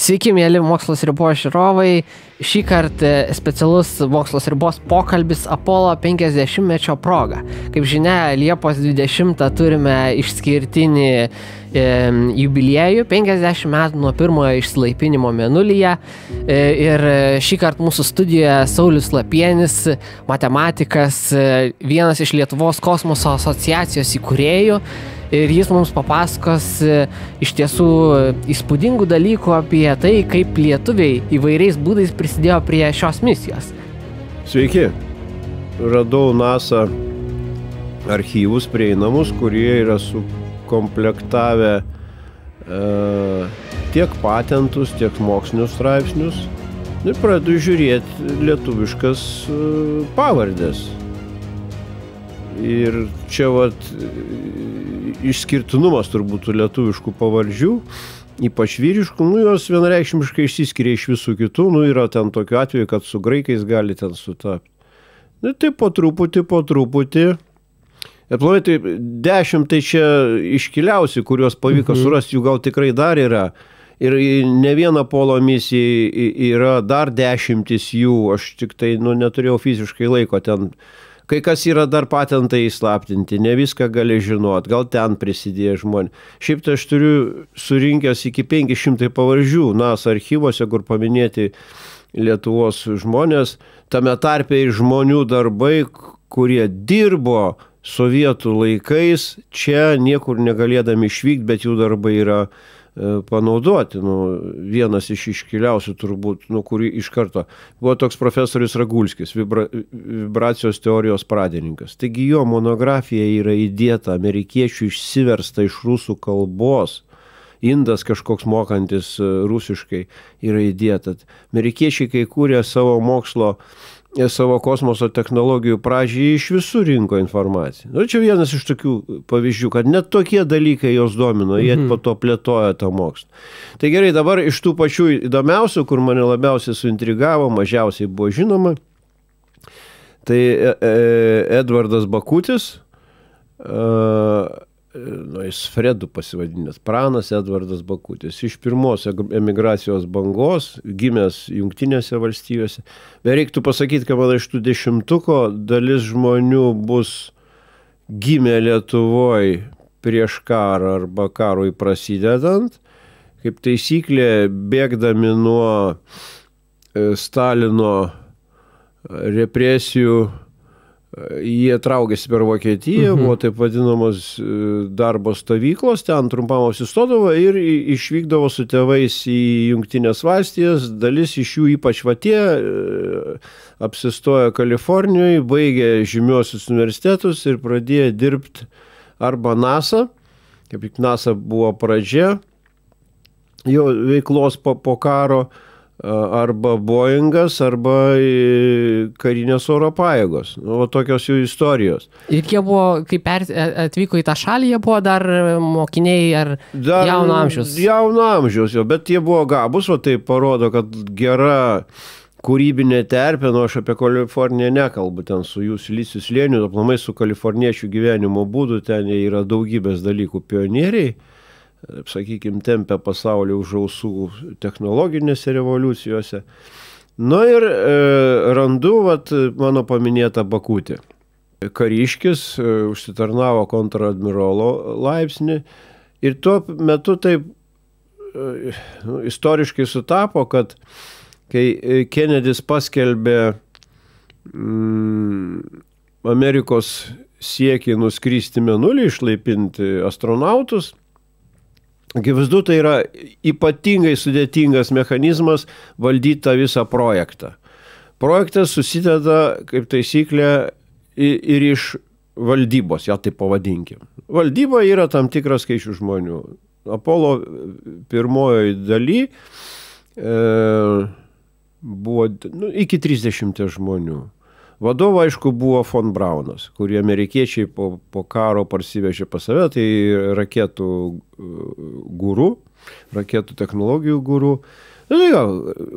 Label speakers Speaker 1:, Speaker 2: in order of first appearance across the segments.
Speaker 1: Sveiki, mėly Mokslas ribos žiūrovai. Šį kartą specialus Mokslas ribos pokalbis Apollo 50-mečio proga. Kaip žinia, Liepos 20 turime išskirtinį jubiliejų, 50 metų nuo pirmojo išsilaipinimo Mėnulyje. Ir šį kartą mūsų studijoje Saulius Lapienis, matematikas, vienas iš Lietuvos kosmoso asociacijos įkūrėjų. Ir jis mums papasakos iš tiesų įspūdingų dalykų apie tai, kaip lietuviai įvairiais būdais prisidėjo prie šios misijos.
Speaker 2: Sveiki. Radau NASA archyvus prieinamus, kurie yra sukomplektavę tiek patentus, tiek mokslinius straipsnius. Ir pradedu žiūrėti lietuviškas pavardės. Ir čia išskirtinumas turbūt lietuviškų pavardžių, ypač vyriškų, jos vienareikšmiškai išsiskiria iš visų kitų, yra ten tokiu atveju, kad su graikais gali ten sutapti. Tai po truputį. Ir planai, tai 10 tai čia iškiliausi, kuriuos pavyko surasti, jų gal tikrai dar yra. Ir ne viena Apollo misija yra dar 10 jų, aš tik tai neturėjau fiziškai laiko ten. Kai kas yra dar patentai įslaptinti, ne viską gali žinot, gal ten prisidėjo žmonės. Šiaip tai aš turiu surinkęs iki 500 pavardžių NASA archyvose, kur paminėti Lietuvos žmonės, tame tarpe ir žmonių darbai, kurie dirbo sovietų laikais, čia niekur negalėdami išvykti, bet jų darbai yra panaudoti. Vienas iš iškiliausių turbūt, kurį iš karto buvo toks profesorius Ragulskis, vibracijos teorijos pradininkas. Taigi jo monografija yra įdėta, amerikiečių išsiversta iš rusų kalbos, indas kažkoks mokantis rusiškai yra įdėta. Amerikiečiai, kai kūrė savo mokslo, savo kosmoso technologijų pradžiai, iš visų rinko informaciją. Čia vienas iš tokių pavyzdžių, kad net tokie dalykai jos domino, jie po to plėtojo tą mokslą. Tai gerai, dabar iš tų pačių įdomiausių, kur mane labiausiai suintrigavo, mažiausiai buvo žinoma, tai Edvardas Bakutis, jis Fredu pasivadinęs, pranas Edvardas Bakutis, iš pirmos emigracijos bangos, gimęs Jungtinėse valstijose. Bet reiktų pasakyti, kad man iš tų 10 dalis žmonių bus gimę Lietuvoje prieš karą arba karui prasidedant, kaip taisyklė bėgdami nuo Stalino represijų. Jie traukėsi per Vokietiją, buvo taip vadinamos darbo stovyklos, ten trumpam apsistodavo ir išvykdavo su tėvais į Jungtinės valstijas. Dalis iš jų, ypač tie, apsistojo Kalifornijoje, baigė žymiuosius universitetus ir pradėjo dirbti arba NASA, kaip tik NASA buvo pradžia jo veiklos po karo, arba Boeingas, arba karinės oro pajėgos. Tokios jų istorijos.
Speaker 1: Ir jie buvo, kai atvyko į tą šalį, jie buvo dar mokiniai ar jauno amžiaus?
Speaker 2: Jauno amžiaus, bet jie buvo gabus, tai parodo, kad gera kūrybinė terpė, aš apie Kaliforniją nekalbu, ten su jų silicijų slėniu, aplamai su kaliforniečių gyvenimo būdu, ten yra daugybės dalykų pionieriai, sakykime, tempia pasaulį už ausų technologinėse revoliucijose. Ir randu mano paminėtą Bakutį. Kariškis užsitarnavo kontradmirolo laipsnį ir tuo metu taip istoriškai sutapo, kad kai Kennedys paskelbė Amerikos siekį nuskristi Mėnulį, išlaipinti astronautus, akivaizdu, tai yra ypatingai sudėtingas mechanizmas valdyti tą visą projektą. Projektas susideda, kaip taisyklė, ir iš valdybos, ją taip pavadinkim. Valdyba yra tam tikras skaičius žmonių. Apollo pirmojoje daly buvo iki 30 žmonių. Vadovo, aišku, buvo von Braunas, kurį amerikiečiai po karo parsivežė pas save, tai raketų guru, raketų technologijų guru.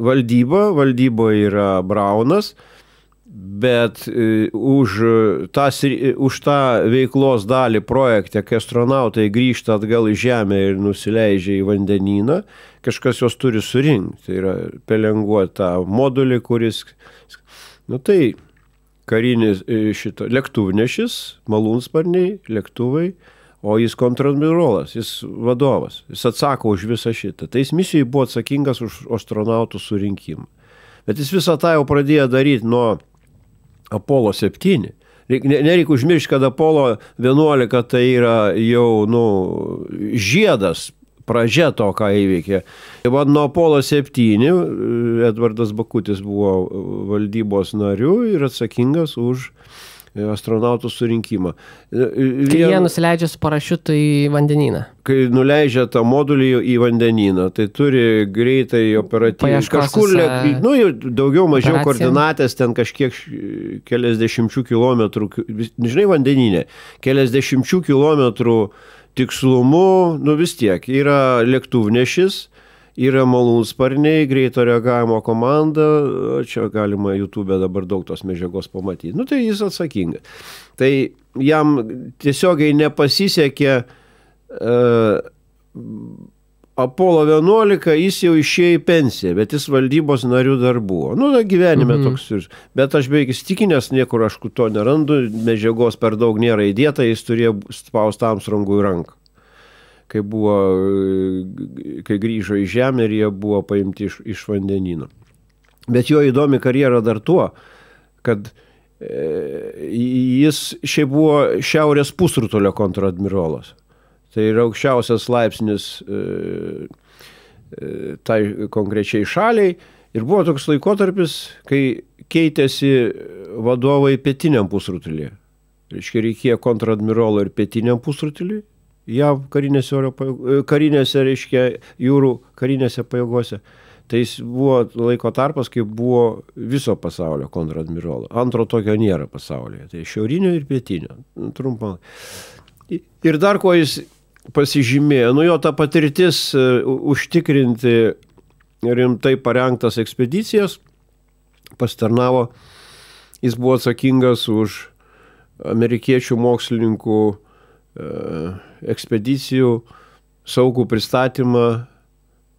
Speaker 2: Valdyba yra Braunas, Bet už tą veiklos dalį projekte, kai astronautai grįžta atgal į Žemę ir nusileidžia į vandenyną, kažkas jos turi surinkti. Tai yra pelenguoti tą modulį, kuris... Tai karinis lėktuvnešis, malūnsparniai, lėktuvai, o jis kontradmirolas, jis vadovas, jis atsako už visą šitą. Tai jis misijai buvo atsakingas už astronautų surinkimą. Bet jis visą tą jau pradėjo daryti nuo Apollo 7. Nereikia užmiršti, kad Apollo 11 tai yra jau žiedas, pradžia to, ką įveikė. Nuo Apollo 7 Edvardas Bakutis buvo valdybos nariu ir atsakingas už astronautų surinkimą.
Speaker 1: Kai jie nusileidžia su parašiutu į vandenyną.
Speaker 2: Kai nuleidžia tą modulį į vandenyną, tai turi greitai operatyviai. Kažkur, daugiau mažiau koordinatės, ten kažkiek keliasdešimčių kilometrų, žinai, vandeninė, keliasdešimčių kilometrų tikslumu, vis tiek, yra lėktuvnešis, yra malūnsparniai, greito reagavimo komanda, čia galima YouTube dabar daug tos medžiagos pamatyti. Tai jis atsakingas. Tai jam tiesiogiai nepasisekė Apollo 11, jis jau išėjo į pensiją, bet jis valdybos narių dar buvo. Gyvenime toks. Bet aš beveik įstikinęs, niekur aš to nerandu, medžiagos per daug nėra įdėta, jis turėjo spausti Armstrongui ranką. Kai grįžo į Žemę ir jie buvo paimti iš vandenyno. Bet jo įdomi karjera dar tuo, kad jis šiaip buvo Šiaurės pusrutulio kontradmirolas. Tai yra aukščiausias laipsnis tai konkrečiai šaliai. Ir buvo toks laikotarpis, kai keitėsi vadovai pietiniam pusrutulyje. Reikėjo kontradmirolo ir pietiniam pusrutulyje. JAV karinėse, jūrų karinėse pajėgose. Tai jis buvo laiko tarpas, kai buvo viso pasaulio kontradmirolo. Antro tokio nėra pasaulyje. Tai šiaurinio ir pietinio. Trumpą. Ir dar ko jis pasižymėjo, jo ta patirtis užtikrinti rimtai parengtas ekspedicijas pasitarnavo. Jis buvo atsakingas už amerikiečių mokslininkų ekspedicijų saugų pristatymą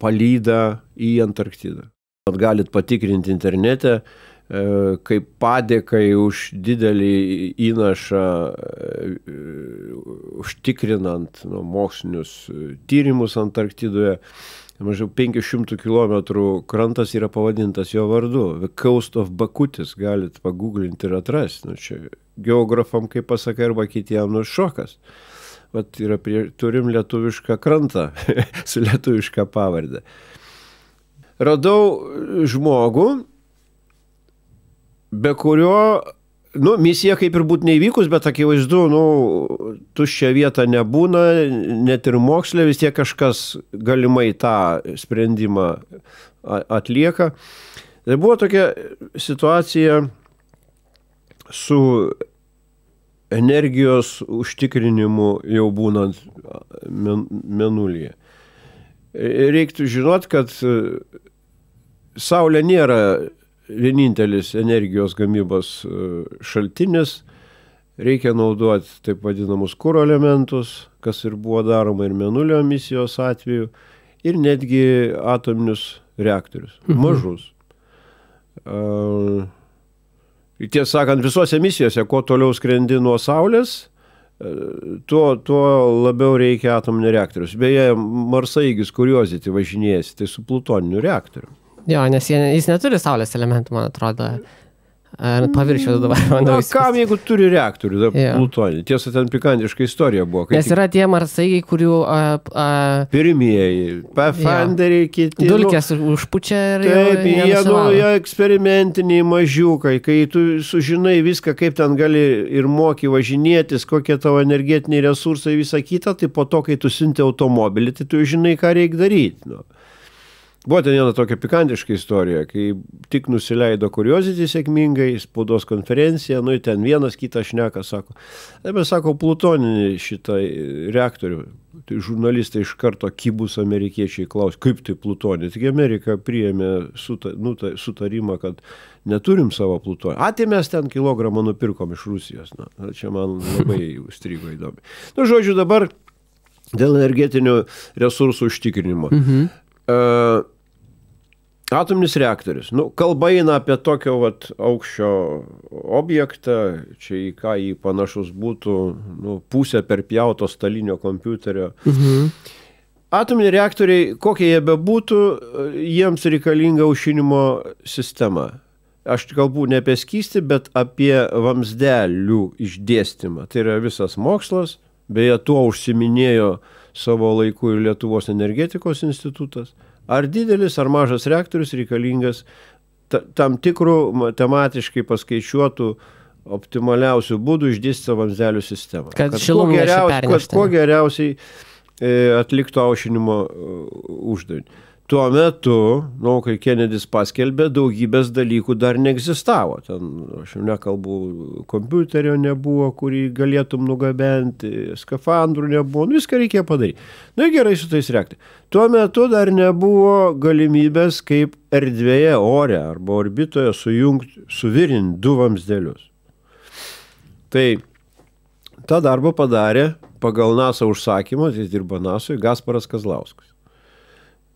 Speaker 2: palydą į Antarktidą. Galit patikrinti internete, kaip padėkai už didelį įnašą užtikrinant mokslinius tyrimus Antarktidoje. Mažiau 500 kilometrų krantas yra pavadintas jo vardu. The Coast of Bakutis, galit paguglinti ir atrasti. Čia geografam, kaip pasakai, arba kitiem šokas. Turim lietuvišką krantą su lietuvišką pavardę. Radau žmogų, be kurio, misija kaip ir būtų neįvykus, bet akivaizdu, tuščia vieta nebūna, net ir moksle vis tiek kažkas galimai tą sprendimą atlieka. Tai buvo tokia situacija su energijos užtikrinimu jau būnant Mėnulyje. Reiktų žinot, kad Saulė nėra vienintelis energijos gamybos šaltinis. Reikia naudoti taip vadinamus kuro elementus, kas ir buvo daroma ir Mėnulio misijos atveju, ir netgi atominius reaktorius, mažus. Tiesą sakant, visose misijose, kuo toliau skrendi nuo Saulės, tuo labiau reikia atominio reaktorius. Beje, Marsaeigis Curiosity važinėjasi, tai su plutoniniu reaktoriu.
Speaker 1: Jo, nes jis neturi Saulės elementų, man atrodo. Paviršiaus dabar.
Speaker 2: Kam, jeigu turi reaktorių, plutonį? Tiesa, ten pikantiška istorija buvo.
Speaker 1: Nes yra tie Marsaigiai, kurių...
Speaker 2: Pirmieji, Pathfinderiai, kiti...
Speaker 1: Dulkės užpučia ir
Speaker 2: jie eksperimentiniai mažiukai, kai tu sužinai viską, kaip ten gali ir moki važinėtis, kokie tavo energetiniai resursai, visą kitą, tai po to, kai tu siunti automobilį, tai tu žinai, ką reikia daryti. Buvo ten viena tokia pikantiška istorija, kai tik nusileido Curiosity sėkmingai, spaudos konferencija, nu, ten vienas kitą šneka, sako, mes sako, plutoninį šitą reaktorių. Tai žurnalistai iš karto kibus amerikiečiai klaus, kaip tai plutonį. Tik Amerika priėmė sutarimą, kad neturim savo plutonį. Tai mes ten kilogramą nupirkom iš Rusijos. Na, čia man labai užstrigo įdomi. Nu, žodžiu, dabar dėl energetinių resursų užtikrinimo. Atominis reaktorius. Nu, kalba eina apie tokio aukščio objektą, čia į ką jį panašus būtų, nu, pusę perpjauto stalinio kompiuterio. Atominiai reaktoriai, kokie jie bebūtų, jiems reikalinga aušinimo sistema. Aš kalbu ne apie skystį, bet apie vamzdelių išdėstymą. Tai yra visas mokslas, beje, tuo užsiminėjo savo laiku ir Lietuvos energetikos institutas. Ar didelis, ar mažas reaktorius reikalingas tam tikrų matematiškai paskaičiuotų optimaliausių būdų išdėstyti vamzdelių sistemą.
Speaker 1: Kad kuo
Speaker 2: geriausiai atliktų aušinimo uždavinį. Tuo metu, kai Kennedys paskelbė, daugybės dalykų dar neegzistavo. Ten, aš jau nekalbu, kompiuterio nebuvo, kurį galėtum nugabenti, skafandrų nebuvo, viską reikėjo padaryti. Nu, gerai su tais reaktoriais. Tuo metu dar nebuvo galimybės kaip erdvėje, ore arba orbitoje suvirinti du vamzdelius. Tai tą darbą padarė pagal NASA užsakymą, jis dirba NASOje, Gasparas Kazlauskas.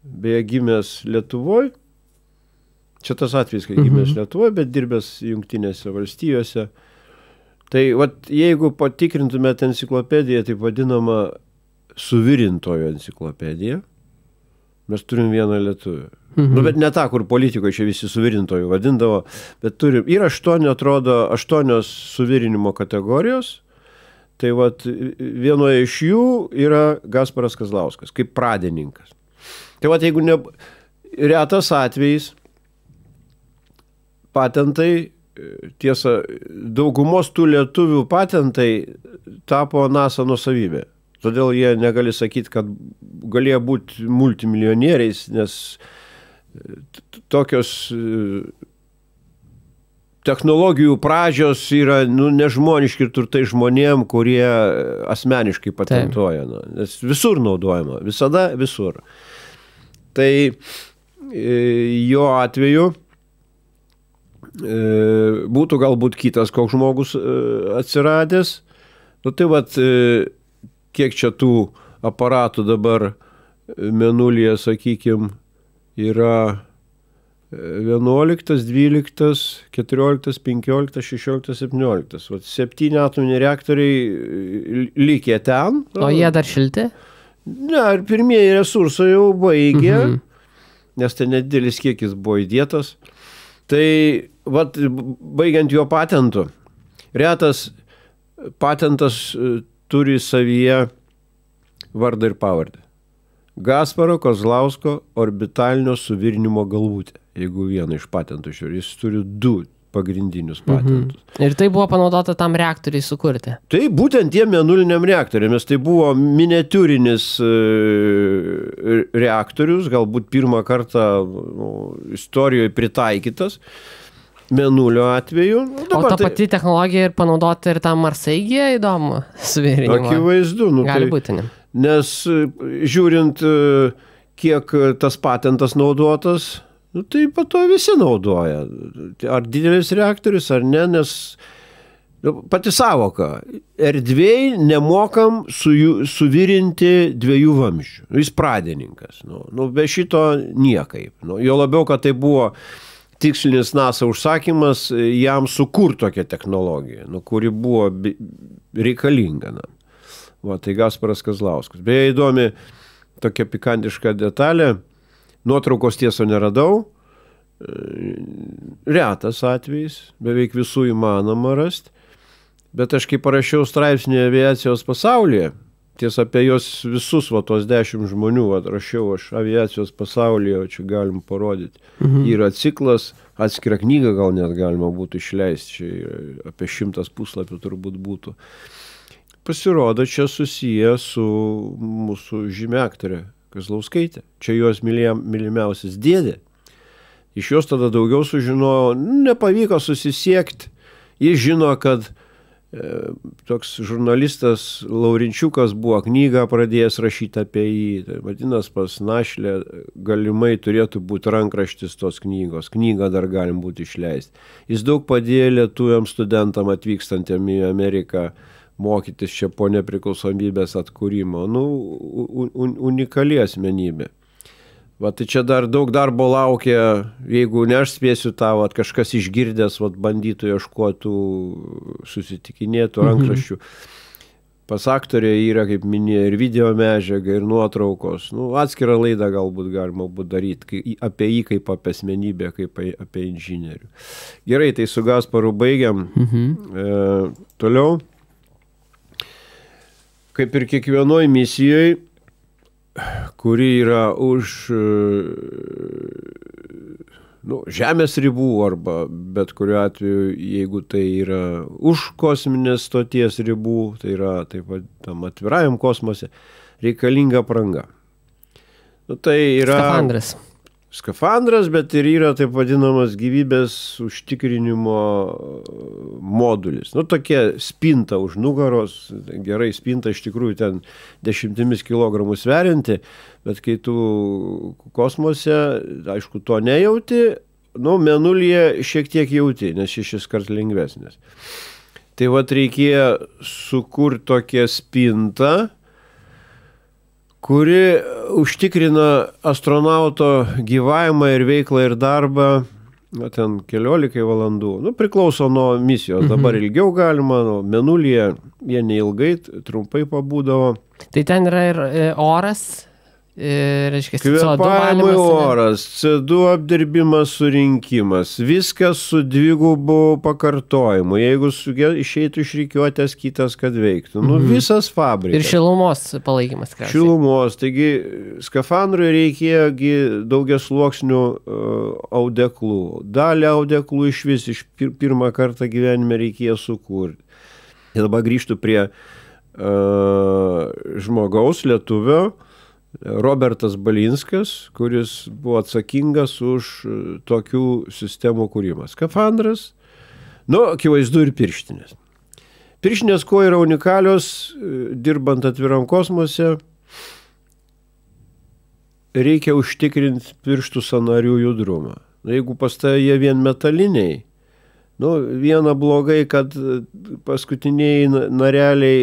Speaker 2: Beje, gimęs Lietuvoje, čia tas atvejis, kai gimęs Lietuvoje, bet dirbęs Jungtinėse valstijose. Tai jeigu patikrintumėte enciklopediją, taip vadinama suvirintojo enciklopedija, mes turim vieną lietuvį. Nu, bet ne tą, kur politikoje čia visi suvirintojų vadindavo, bet turim, yra 8 suvirinimo kategorijos, tai vienoje iš jų yra Gasparas Kazlauskas, kaip pradininkas. Tai jeigu retas atvejis, patentai, tiesa, daugumos tų lietuvių patentai tapo NASA nuosavybė. Todėl jie negali sakyti, kad galėjo būti multimilijonieriais, nes tokios technologijų pradžios yra nežmoniški turtai žmonėm, kurie asmeniškai patentuoja. Nes visur naudojama, visada visur. Tai jo atveju būtų galbūt kitas koks žmogus atsiradęs. Nu tai kiek čia tų aparatų dabar Mėnulyje, sakykime, yra 11, 12, 14, 15, 16, 17. 7 atominiai reaktoriai likę ten.
Speaker 1: O jie dar šilti?
Speaker 2: Ne, ir pirmieji resursai jau baigė, nes tai nedidelis kiekis buvo įdėtas. Tai, baigiant jo patentu, retas patentas turi savyje vardą ir pavardę. Gasparo Kazlausko orbitalinio suvirinimo galvutė, jeigu vieną iš patentų žiūri, jis turi 2 pagrindinius patentus.
Speaker 1: Ir tai buvo panaudota tam reaktoriai sukurti?
Speaker 2: Tai būtent tiem mėnuliniam reaktoriams. Tai buvo miniatiūrinis reaktorius, galbūt pirmą kartą istorijoje pritaikytas Mėnulio atveju.
Speaker 1: O ta pati technologija ir panaudota ir tam Marsaigėje įdomu suvirinimo?
Speaker 2: Akivaizdu.
Speaker 1: Gali būti, ne?
Speaker 2: Nes žiūrint, kiek tas patentas naudotas, tai po to visi naudoja. Ar didelis reaktorius, ar ne, nes pati savoka. Erdvėj nemokam suvirinti 2 vamzdžių. Jis pradininkas. Be šito niekaip. Jo labiau, kad tai buvo tikslinis NASA užsakymas jam sukurti tokią technologiją, kuri buvo reikalinga. Tai Gasparas Kazlauskas. Beje, įdomi tokia pikantiška detalė. Nuotraukos tieso neradau. Retas atvejis. Beveik visų įmanoma rasti. Bet aš kai parašiau straipsnį aviacijos pasaulyje, tiesa apie jos visus, tos 10 žmonių, rašiau aš aviacijos pasaulyje, čia galim parodyti. Yra ciklas, atskira knyga gal net galima būtų išleisti, čia apie 100 puslapių turbūt būtų. Pasirodo, čia susiję su mūsų žymia aktorė Kazlauskaitė. Čia jos mylimiausias dėdė. Iš jos tada daugiau sužinojo, nepavyko susisiekti. Jis žino, kad toks žurnalistas Laurinčiukas buvo knygą pradėjęs rašyti apie jį. Tai vadinasi, pas Našlę galimai turėtų būti rankraštis tos knygos. Knygą dar galim būti išleisti. Jis daug padėjo lietuviams studentam atvykstantiem į Ameriką mokytis čia po nepriklausomybės atkūrimo. Unikali asmenybė. Va, tai čia dar daug darbo laukia, jeigu ne aš spėsiu tą, va, kažkas išgirdęs, va, bandytų ieškotų, susitikinėtų rankraščių. Pas aktorė yra, kaip minėjo, ir video medžiaga, ir nuotraukos. Atskirą laidą galbūt galima būtų daryti apie jį kaip apie asmenybę, kaip apie inžinierių. Gerai, tai su Gasparu baigiam. Toliau. Kaip ir kiekvienoj misijoje, kuri yra už žemės ribų arba bet kuriuo atveju, jeigu tai yra už kosminės stoties ribų, tai yra taip pat tam atvirajam kosmose, reikalinga apranga. Tai yra skafandras, bet ir yra taip vadinamas gyvybės užtikrinimo modulis. Tokia spinta už nugaros, gerai spinta iš tikrųjų ten 10 kilogramų sverianti, bet kai tu kosmose, aišku, to nejauti, mėnulyje šiek tiek jauti, nes 6 kart lengvesnis. Tai vat reikėjo sukurti tokią spintą, kuri užtikrina astronauto gyvavimą ir veiklą ir darbą, ten 14 valandų. Priklauso nuo misijos, dabar ilgiau galima, mėnulyje jie neilgai, trumpai pabūdavo.
Speaker 1: Tai ten yra ir oras, reiškia,
Speaker 2: kvėpavimui oras, CO2 apdirbimas, surinkimas, viskas su dvigubu pakartojimu, jeigu išeitų iš rikiuotės kitas, kad veiktų. Visas fabrikas.
Speaker 1: Ir šilumos palaikymas.
Speaker 2: Šilumos, taigi skafandrui reikėjo daugiasluoksnių audeklų. Dalį audeklų iš pirmą kartą gyvenime reikėjo sukurti. Ir dabar grįžtų prie žmogaus, lietuvio, Robertas Balinskas, kuris buvo atsakingas už tokių sistemų kūrimą. Skafandras, akivaizdu ir pirštinės. Pirštinės, kuo yra unikalios, dirbant atviram kosmose, reikia užtikrinti pirštų sąnarių judrumą. Jeigu pas tai jie vien metaliniai, viena blogai, kad paskutiniai nareliai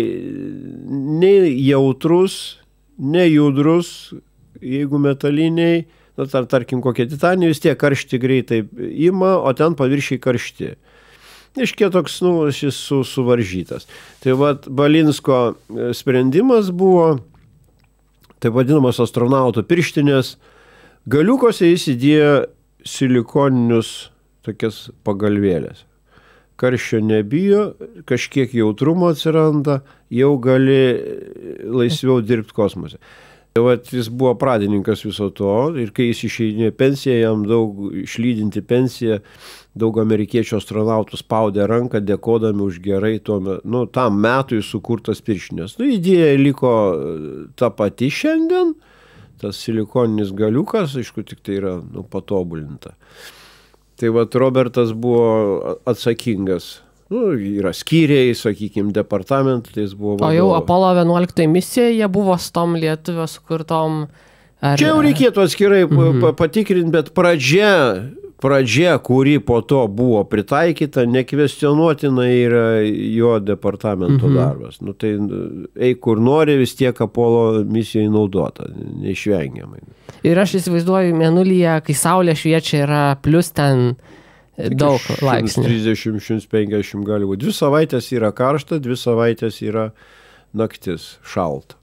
Speaker 2: nei jautrus, nejudrus, jeigu metaliniai, tarkim kokie titaniniai, vis tiek karšti greitai ima, o ten paviršiai karšti. Iškia toks, šis suvaržytas. Tai Balinsko sprendimas buvo, taip vadinamas astronauto pirštinės, galiukose jis įdėjo silikoninius tokias pagalvėlės. Karščio nebijo, kažkiek jautrumo atsiranda, jau gali laisviau dirbti kosmose. Jis buvo pradininkas viso to ir kai jis išeidinėjo pensiją, jam daug išlydinti pensiją, daug amerikiečių astronautų spaudė ranką, dėkodami už gerai tam metui sukurtas pirštinės. Idėja liko ta pati šiandien, tas silikoninis galiukas, aišku, tik tai yra patobulinta. Tai Robertas buvo atsakingas. Yra skyriai, sakykime, departamentai, tai jis buvo vadovas.
Speaker 1: O jau Apollo 11 misija, jie buvo su tom lietuvio sukurtom...
Speaker 2: Čia jau reikėtų atskirai patikrinti, bet pradžia, kuri po to buvo pritaikyta, nekvestionuotina yra jo departamento darbas. Tai eik kur nori, vis tiek Apollo misijai naudota, neišvengiamai.
Speaker 1: Ir aš įsivaizduoju, mėnulyje, kai saulė šviečia, yra plus ten daug laipsnių.
Speaker 2: 130-150 gali būti. 2 savaitės yra karšta, 2 savaitės yra naktis šalta.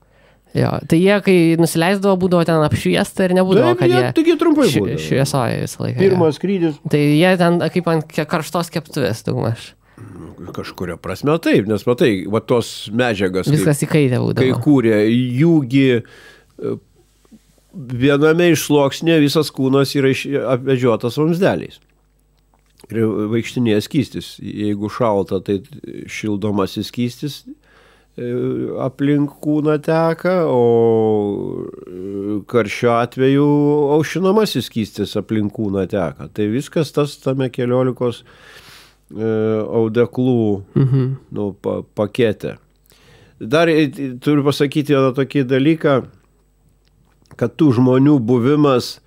Speaker 1: Jo, tai jie, kai nusileisdavo, būdavo ten apšviesta ir nebūdavo, kad
Speaker 2: jie trumpai būdavo.
Speaker 1: Šviesoja visą laiką.
Speaker 2: Pirmas skrydis.
Speaker 1: Tai jie ten kaip ant karštos keptuvės daugmaž.
Speaker 2: Kažkuria prasme taip, nes matai, tos medžiagas,
Speaker 1: viskas įkaitę būdavo.
Speaker 2: Kai kūrė, jūgi viename iš sluoksnė visas kūnas yra apvedžiotas vamzdeliais. Ir vaikštinėje skystis. Jeigu šalta, tai šildomasis skystis aplink kūną teka, o karščio atveju aušinamasis skystis aplink kūną teka. Tai viskas tas tame 14 audeklų pakete. Dar turiu pasakyti vieną tokį dalyką, kad tų žmonių buvimas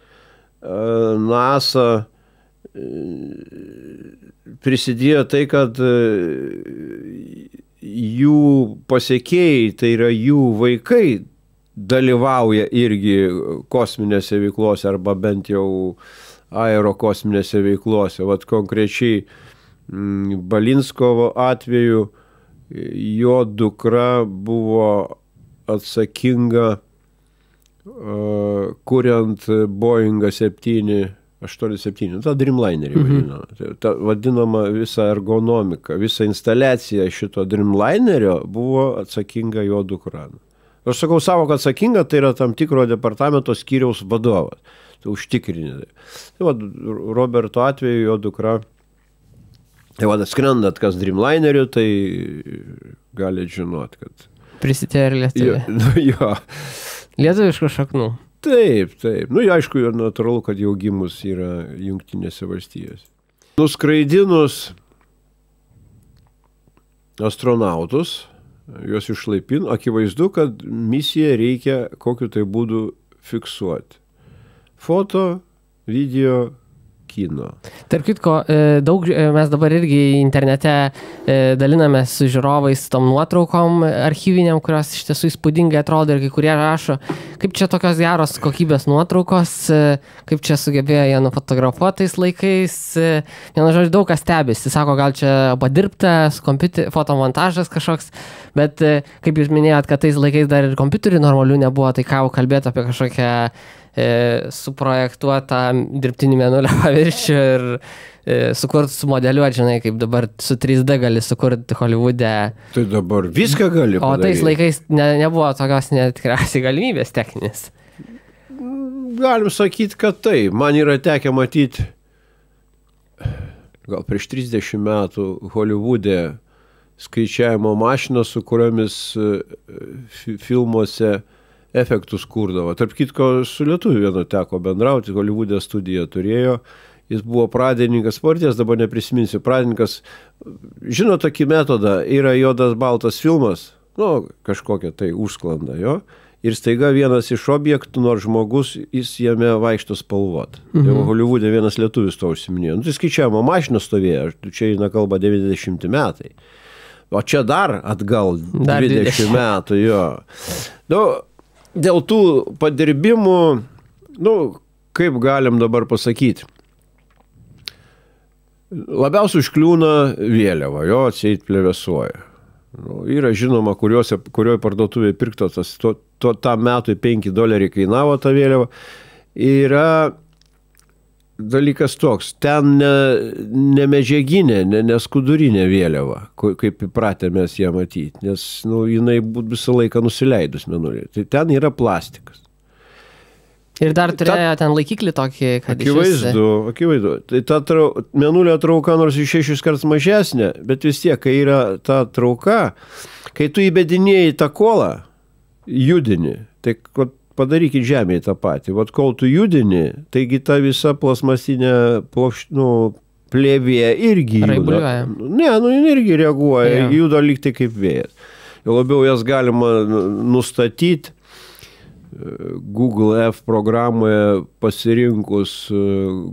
Speaker 2: NASA prisidėjo tai, kad jų pasiekėjai, tai yra jų vaikai, dalyvauja irgi kosminėse veiklose arba bent jau aerokosminėse veiklose. Vat konkrečiai Balinskovo atveju jo dukra buvo atsakinga kuriant Boeingą 787, tą Dreamlinerį vadinama. Ta vadinama visa ergonomika, visa instaliacija šito Dreamlinerio buvo atsakinga jo dukra. Aš sakau savo, kad atsakinga, tai yra tam tikro departamento skyriaus vadovas. Tai užtikrinė. Tai va, Roberto atveju jo dukra, tai va, skrendat kas Dreamlineriu, tai galite žinot, kad...
Speaker 1: Prisitėjo ir Lietuvė.
Speaker 2: Jo.
Speaker 1: Lietuviškų šaknų.
Speaker 2: Taip, taip. Nu, aišku, natūralu, kad jau gimus yra Jungtinėse valstijose. Nuskraidinus astronautus, juos išlaipino, akivaizdu, kad misiją reikia kokiu tai būdu fiksuoti. Foto, video, kino.
Speaker 1: Tarp kitko, daug mes dabar irgi internete dalinamės su žiūrovais tom nuotraukom archyviniam, kurios iš tiesų įspūdingai atrodo ir kai kurie rašo, kaip čia tokios geros kokybės nuotraukos, kaip čia sugebėjo jie nufotografuotais laikais. Vienu žodžiu, daug kas stebisi. Sako, gal čia padirbtas fotomontažas kažkoks, bet kaip jūs minėjot, kad tais laikais dar ir kompiuterių normalių nebuvo, tai ką jau kalbėti apie kažkokią suprojektuotą dirbtinį mėnulio paviršių ir sukurti, sumodeliuoti, žinai, kaip dabar su 3D gali sukurti Holivude.
Speaker 2: Tai dabar viską gali padaryti.
Speaker 1: O tais laikais nebuvo tokios tikriausiai galimybės techninės.
Speaker 2: Galim sakyti, kad tai. Man yra tekę matyti gal prieš 30 metų Holivude skaičiavimo mašiną, su kuriomis filmuose efektus kurdavo. Tarp kitko, su lietuviu vienu teko bendrauti, Holivude studiją turėjo, jis buvo pradininkas, partijas, dabar neprisiminsiu, pradininkas, žino tokį metodą, yra juodas baltas filmas, nu, kažkokia tai užsklanda jo, ir staiga vienas iš objektų, nors žmogus, jis jame vaikšto spalvot. Jau Holivude vienas lietuvis to užsiminėjo. Nu, tai skaičiavimo mašina stovėjo, čia eina kalba 90 metai. O čia dar atgal 20 metų, jo. Nu, dėl tų padirbimų, nu, kaip galim dabar pasakyti, labiausiai užkliūna vėliava, jo atseit plevėsuoja. Nu, yra žinoma, kurioje parduotuvėje pirktas, tam metui $5 kainavo ta vėliava. Yra dalykas toks, ten ne medžiaginė, ne skudurinė vėliava, kaip įpratę mes ją matyti, nes jinai visą laiką nusileidus mėnulį. Tai ten yra plastikas.
Speaker 1: Ir dar turėjo ten laikiklį tokį, kad
Speaker 2: akivaizdu. Tai ta mėnulio trauka nors iš 6 kartus mažesnė, bet vis tiek, kai yra ta trauka, kai tu įbedinėjai tą kolą, judini, tai padarykit žemėje tą patį. Vat kol tu judini, taigi ta visa plasmasinė plėvė irgi juda. Ne, jin irgi reaguoja, juda lyg tai kaip vėjas. Jau labiau jas galima nustatyti Google F programoje pasirinkus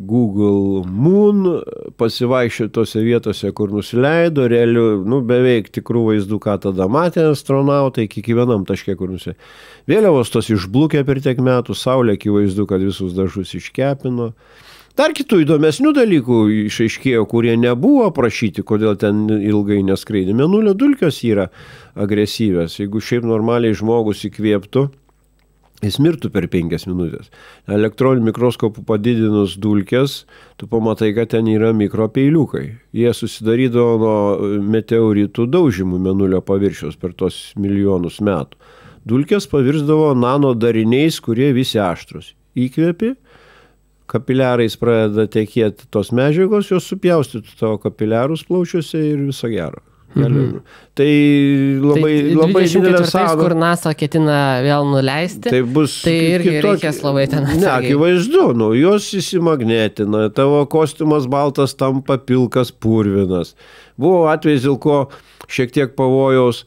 Speaker 2: Google Moon, pasivaikščiotose vietose, kur nusileido, realių, beveik tikrų vaizdų, ką tada matė astronautai, kiekvienam taške, kur nusileido. Vėliavos tos išblūkė per tiek metų, saulė akivaizdu, kad visus dažus iškepino. Dar kitų įdomesnių dalykų išaiškėjo, kurie nebuvo aprašyti, kodėl ten ilgai neskraidė. Mėnulio dulkės yra agresyvės. Jeigu šiaip normaliai žmogus įkvėptų, jis mirtų per 5 minutės. Elektroniniu mikroskopu padidinus dulkės, tu pamatai, kad ten yra mikropeiliukai. Jie susidarydavo nuo meteoritų daužymų mėnulio paviršiaus per tos milijonus metų. Dulkės pavirsdavo nano dariniais, kurie visi aštrus. Įkvėpi, kapiliarais pradeda tekėti tos medžiagos, jos supjaustytų tavo kapiliarus plaučiuose ir viso gero. Tai labai didelė sąnaudų.
Speaker 1: Kur NASA ketina vėl nuleisti,
Speaker 2: tai bus
Speaker 1: tai irgi reikės labai ten atsargiai.
Speaker 2: Ne, akivaizdu, jos įsimagnetina, tavo kostiumas baltas tampa pilkas purvinas. Buvo atvejs, dėl ko šiek tiek pavojaus,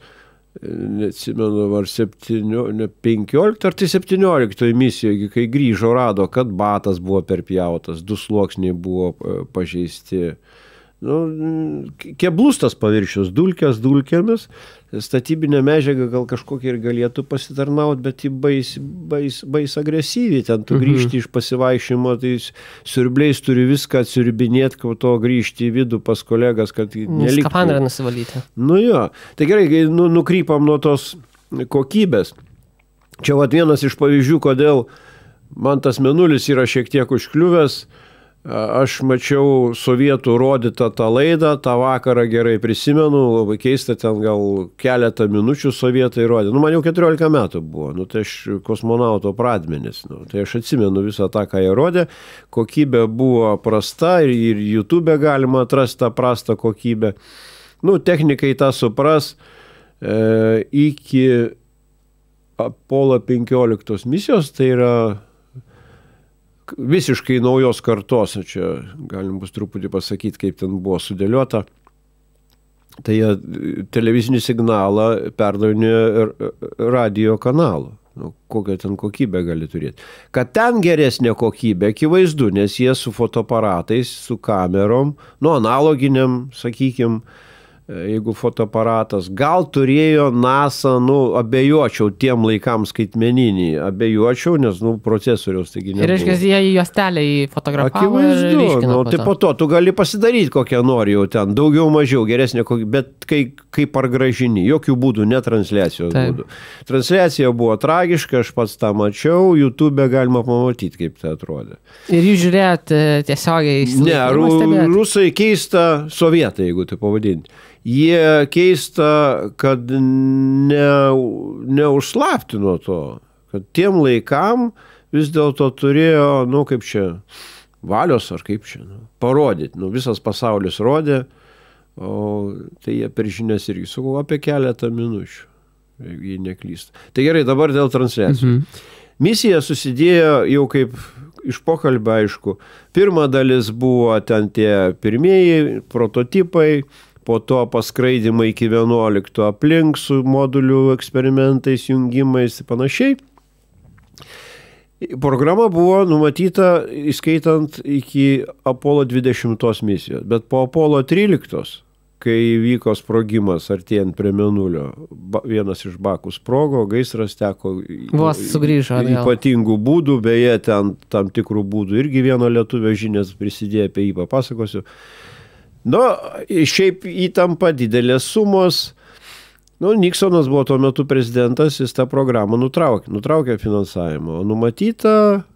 Speaker 2: neatsimenu, ar 15 ar tai 17 misijoje, kai grįžo, rado, kad batas buvo perpjautas, 2 sluoksniai buvo pažeisti. Keblus tas paviršius, dulkės dulkėmis, statybinė medžiaga gal kažkokia ir galėtų pasitarnauti, bet ji bais agresyviai, ten tu grįžti iš pasivaišymo, tai siurbliais turi viską atsiurbinėti, kad to grįžti į vidų pas kolegas, kad neliktų.
Speaker 1: Skafandrą nusivalyti.
Speaker 2: Jo, tai gerai, nukrypam nuo tos kokybės. Čia vienas iš pavyzdžių, kodėl man tas mėnulis yra šiek tiek užkliuvęs. Aš mačiau sovietų rodytą tą laidą, tą vakarą gerai prisimenu, labai keista, ten gal keletą minučių sovietai rodė. Man jau 14 metų buvo, tai aš kosmonauto pradmenis, tai aš atsimenu visą tą, ką jie rodė, kokybė buvo prasta ir YouTube galima atrasti tą prastą kokybę. Technikai tą supras, iki Apollo 15 misijos, tai yra visiškai naujos kartos, čia galim bus truputį pasakyti, kaip ten buvo sudėliota. Tai jie televizinį signalą perdavinė radio kanalu. Kokią ten kokybę gali turėti. Kad ten geresnė kokybė, akivaizdu, nes jie su fotoaparatais, su kamerom, analoginiam, sakykime, jeigu fotoaparatas, gal turėjo NASA, abejočiau tiem laikams skaitmeninį, abejočiau, nes, procesoriaus taigi nebuvo.
Speaker 1: Ir reiškia, jie į juostelę fotografavo ir ryškino.
Speaker 2: Tai po to tu gali pasidaryti kokią nori jau ten, daugiau, mažiau, geresnė kokybė, bet kaip pargražini, jokių būdų, ne transliacijos būdų. Transliacija buvo tragiška, aš pats tą mačiau, YouTube galima pamatyti, kaip tai atrodė.
Speaker 1: Ir jūs žiūrėjot tiesiogiai į
Speaker 2: Ne, rusai keista, sovietai, jeigu tai pavadinti. Jie keista, kad neužslaptino to, kad tiem laikam vis dėlto turėjo, kaip čia, valios ar kaip čia, parodyti. Visas pasaulis rodė, o tai jie per žinias irgi sakau apie keletą minučių, jei neklysta. Tai gerai, dabar dėl transliacijų. Misija susidėjo jau kaip iš pokalbio, aišku. Pirma dalis buvo ten tie pirmieji prototipai, po to paskraidimai iki 11 aplink su modulių eksperimentais, jungimais ir panašiai. Programa buvo numatyta, įskaitant iki Apollo 20 misijos, bet po Apollo 13, kai vyko sprogimas artėjant prie Mėnulio, vienas iš bakų sprogo, gaisras teko ypatingų būdų, beje, ten tam tikrų būdų irgi vieno lietuvio žinias prisidėjo, apie jį papasakosiu. Šiaip įtampa, didelės sumos. Niksonas buvo tuo metu prezidentas, jis tą programą nutraukė finansavimą, o numatyta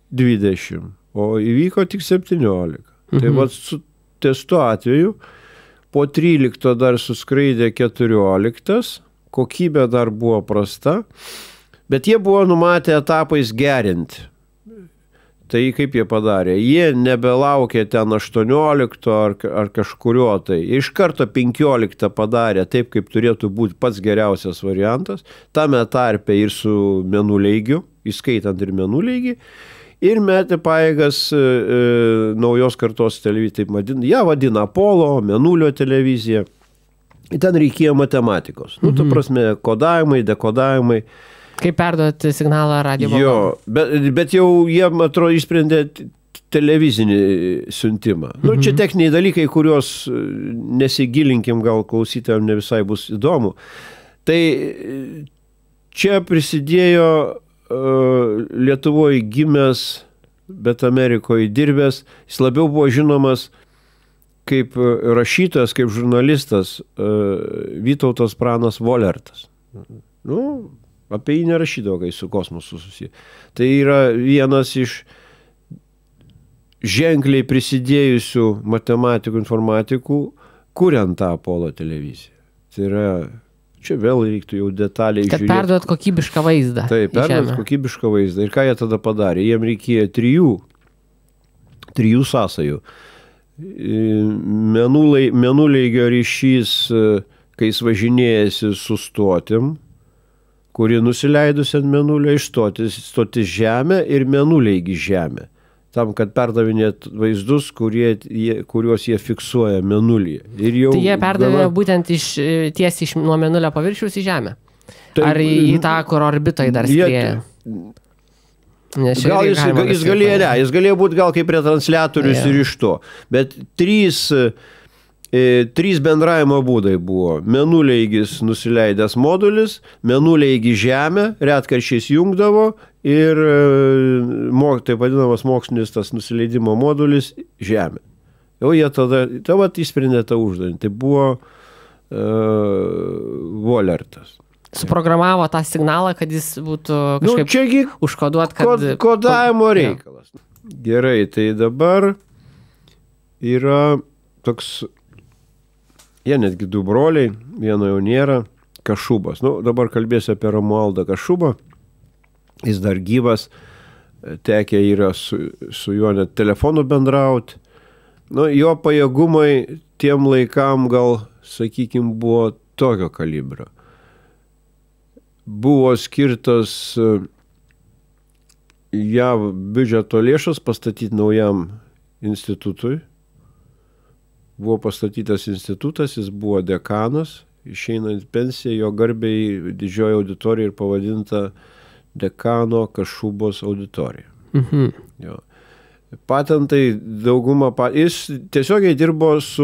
Speaker 2: 20, o įvyko tik 17. Tai su testu atveju po 13 dar suskraidė 14, kokybė dar buvo prasta, bet jie buvo numatę etapais gerinti. Tai kaip jie padarė? Jie nebelaukė ten 18 ar kažkurio tai. Iš karto 15 padarė taip, kaip turėtų būti pats geriausias variantas. Tame tarpe ir su mėnuleigiu, įskaitant ir mėnuleigį. Ir metė pajėgas naujos kartos televiziją. Taip vadina Apollo, mėnulio televizija. Ten reikėjo matematikos. Ta prasme, kodavimai, dekodavimai.
Speaker 1: Kaip perduoti signalą radio bangom.
Speaker 2: Bet jau jie, atrodo, išsprendė televizinį siuntimą. Čia techniniai dalykai, kuriuos nesigilinkim, gal klausytojams ne visai bus įdomu. Tai čia prisidėjo Lietuvoje gimęs, bet Amerikoje dirbęs. Jis labiau buvo žinomas kaip rašytojas, kaip žurnalistas Vytautas Pranas Volertas. Apie jį nerašydavo, kai su kosmosu susiję. Tai yra vienas iš ženkliai prisidėjusių matematikų, informatikų, kuriant tą Apollo televiziją. Tai yra, čia vėl reiktų jau detaliai žiūrėti.
Speaker 1: Kad perduot kokybišką vaizdą.
Speaker 2: Taip, perduot kokybišką vaizdą. Ir ką jie tada padarė? Jiem reikėjo trijų sąsajų. Mėnuleigio ryšys, kai jis važinėjasi su stotim, kuri nusileidus ant mėnulio stotis Žemę ir mėnuleigį Žemę. Tam, kad perdavinėt vaizdus, kuriuos jie fiksuoja mėnulyje. Tai
Speaker 1: jie perdavė būtent tiesiai nuo mėnulio paviršiaus į Žemę? Ar į tą, kur orbitoje dar skrieja?
Speaker 2: Gal jis galėjo būti gal kaip retransliatorius ir iš to. Bet trys bendravimo būdai buvo. Mėnuleigis nusileidęs modulis, mėnuleigį Žemę, retkarčiais jungdavo ir taip vadinamas mokslinis tas nusileidimo modulis Žemė. Jau jie tada įsprendė tą uždavinį. Tai buvo Volertas.
Speaker 1: Suprogramavo tą signalą, kad jis būtų kažkaip užkoduot, kad...
Speaker 2: Kodavimo reikalas. Gerai, tai dabar yra toks, jie netgi du broliai, vieno jau nėra, Kašubas. Dabar kalbėsiu apie Romualdą Kašubą. Jis dar gyvas, tekę yra su juo net telefonu bendrauti. Jo pajėgumai tiem laikam gal, sakykime, buvo tokio kalibro. Buvo skirtas JAV biudžeto lėšas pastatyti naujam institutui. Buvo pastatytas institutas, jis buvo dekanas, išeinant pensiją, jo garbiai didžioji auditorija ir pavadinta dekano Kašubos auditorija. Jo. Patentai dauguma, jis tiesiogiai dirbo su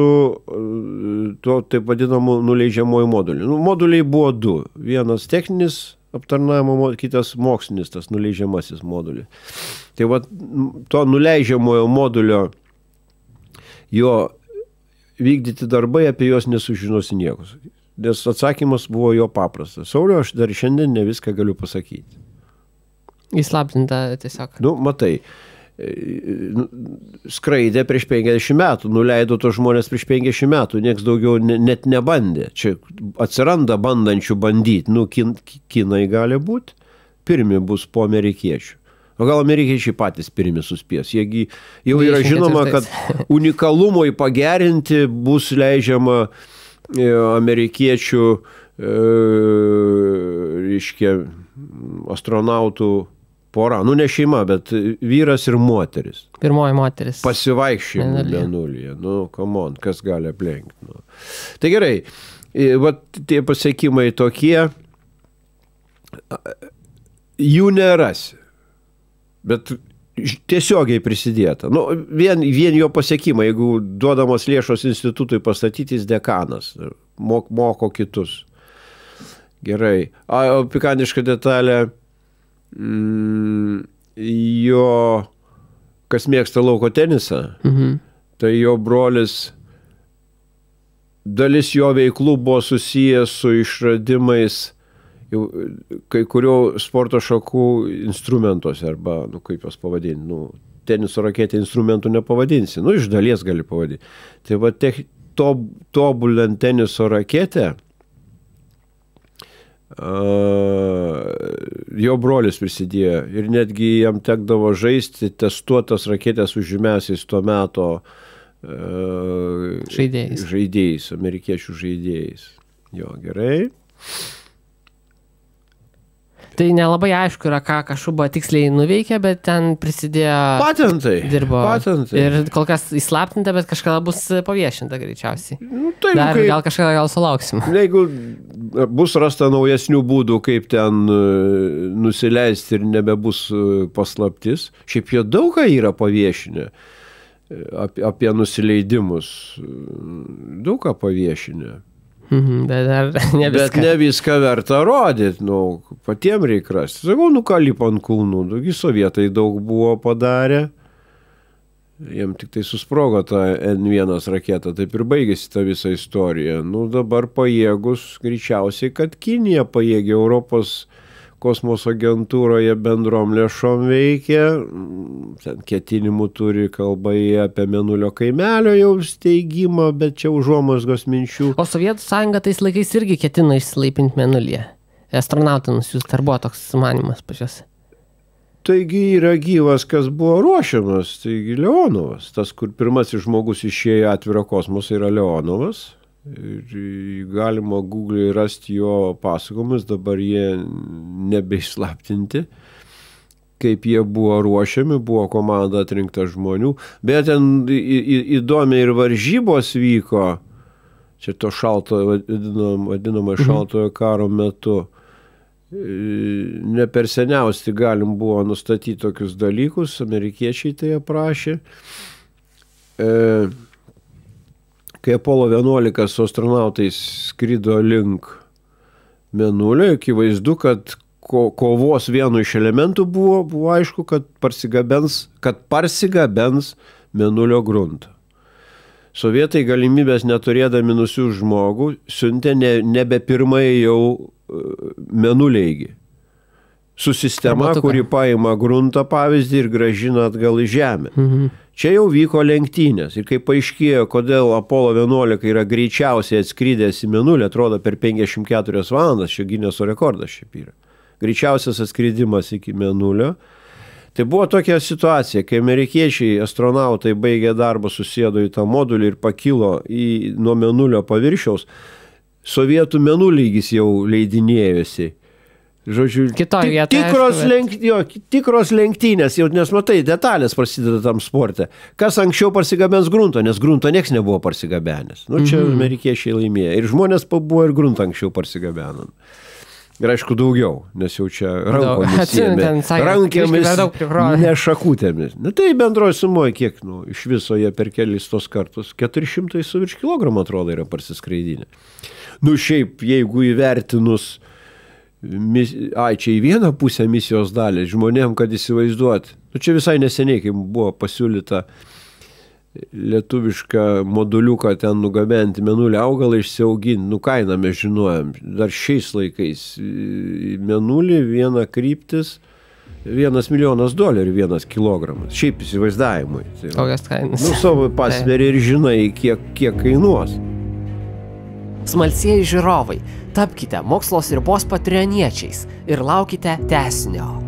Speaker 2: tuo taip vadinamu nuleidžiamuoju moduliu. Moduliai buvo du. Vienas techninis aptarnavimo, kitas mokslinis, tas nuleidžiamasis modulis. Tai to nuleidžiamojo modulio jo vykdyti darbai, apie juos nesužinosi niekus. Nes atsakymas buvo jo paprastas. Sauliau, aš dar šiandien ne viską galiu pasakyti.
Speaker 1: Įslaptinta tiesiog.
Speaker 2: Matai. Skraidė prieš 50 metų, nuleido to žmonės prieš 50 metų, nieks daugiau net nebandė. Čia atsiranda bandančių bandyti. Kinai gali būti, pirmi bus po amerikiečių. O gal amerikiečiai patys pirmi suspės. Jiegi jau yra žinoma, kad unikalumui pagerinti bus leidžiama amerikiečių astronautų pora, ne šeima, bet vyras ir moteris.
Speaker 1: Pirmoji moteris.
Speaker 2: Pasivaikščiojimų mėnulyje. Come on, kas gali aplenkti. Tai gerai, tie pasiekimai tokie, jų nerasi, bet tiesiogiai prisidėta. Vien jo pasiekimai, jeigu duodamos lėšos institutui pastatyti, jis dekanas, moko kitus. Gerai. Pikantiška detalė, jo, kas mėgsta lauko tenisą, tai jo brolis, dalis jo veiklų buvo susijęs su išradimais kai kurių sporto šakų instrumentuose, arba, kaip jos pavadinti, teniso raketė instrumentų nepavadinsi, iš dalies gali pavadinti. Tai tobulant teniso raketę, jo brolis prisidėjo ir netgi jam tekdavo žaisti testuotas raketės už žymiausiais tuo meto žaidėjais, amerikiečių žaidėjais. Jo, gerai.
Speaker 1: Tai nelabai aišku yra, ką Kašuba tiksliai nuveikė, bet ten prisidėjo...
Speaker 2: Patentai.
Speaker 1: Dirbo.
Speaker 2: Patentai.
Speaker 1: Ir kol kas įslaptinta, bet kažkada bus paviešinta greičiausiai. Gal kažkada sulauksim.
Speaker 2: Jeigu bus rasta naujesnių būdų, kaip ten nusileisti ir nebebus paslaptis, šiaip jie daug ką yra paviešinę apie nusileidimus. Daug ką paviešinę.
Speaker 1: Bet
Speaker 2: ne viską verta rodyti, patiem reikia rasti. Sakau, ką lipa ant kulnų, sovietai daug buvo padarę, jiem tik tai susprogo tą N1 raketą, taip ir baigėsi ta visa istorija. Dabar pajėgus, greičiausiai, kad Kinija pajėgia, Europos kosmoso agentūroje bendrom lėšom veikia, ten ketinimų turi kalba apie Mėnulio kaimelio jau steigimą, bet čia užuomazgos minčių.
Speaker 1: O Sovietų sąjunga tais laikais irgi ketino išsilaipinti Mėnulyje. Astronautą nusiųsti, ar buvo toks sumanymas pačios?
Speaker 2: Taigi yra gyvas, kas buvo ruošiamas, taigi Leonovas. Tas, kur pirmasis žmogus išėjo atvirą kosmosą, yra Leonovas. Ir galima Google'e rasti jo pasakojimus, dabar jie nebeišslaptinti, kaip jie buvo ruošiami, buvo komanda atrinkta žmonių. Bet ten įdomiai ir varžybos vyko, čia to šaltojo, vadinamo šaltojo karo metu. Ne per seniausiai galim buvo nustatyti tokius dalykus, amerikiečiai tai aprašė. Kai Apollo 11 su astronautais skrido link Mėnulio, akivaizdu, kad kovos vienu iš elementų buvo aišku, kad parsigabens Mėnulio gruntą. Sovietai galimybės neturėdami nusiųsti žmogų, siuntė nebe pirmai jau Mėnuleigi. Su sistema, kuri paima gruntą pavyzdį ir grąžina atgal į Žemę. Čia jau vyko lenktynės. Ir kai paaiškėjo, kodėl Apollo 11 yra greičiausiai atskridęs į Mėnulį, atrodo per 54 valandas, čia Gineso rekordas šiaip yra. Greičiausias atskridimas iki Mėnulio. Tai buvo tokia situacija, kai amerikiečiai astronautai baigė darbą, susėdo į tą modulį ir pakilo nuo Mėnulio paviršiaus, sovietų Mėnulygis jau leidinėjosi. Žodžiu, tikros lenktynės, jau nes matai, detalės prasideda tam sporte. Kas anksčiau parsigabens gruntą, nes gruntą nieks nebuvo parsigabenęs. Nu, čia amerikiečiai laimėjo. Ir žmonės buvo ir gruntą anksčiau parsigabenant. Ir aišku daugiau, nes jau čia rankomis rankėmis, ne šakutėmis. Na tai bendroji sumoje kiek, iš viso jie per kelis tos kartus 400 su virš kilogramų atrodo yra parsiskraidinę. Šiaip, jeigu įvertinus, čia į vieną pusę misijos dalį, žmonėm, kad įsivaizduot, čia visai neseniai, kai buvo pasiūlyta lietuvišką moduliuką ten nugabenti Mėnulį augalą išsiauginti, kainą mes žinojom, dar šiais laikais Mėnulį viena kryptis, $1 milijonas $1 kilogramas, šiaip įsivaizdavimui.
Speaker 1: Kokias kainas?
Speaker 2: Savo pasveri ir žinai, kiek kainuos.
Speaker 1: Smalsieji žiūrovai, tapkite Mokslo ribos patreoniečiais ir laukite tęsinio.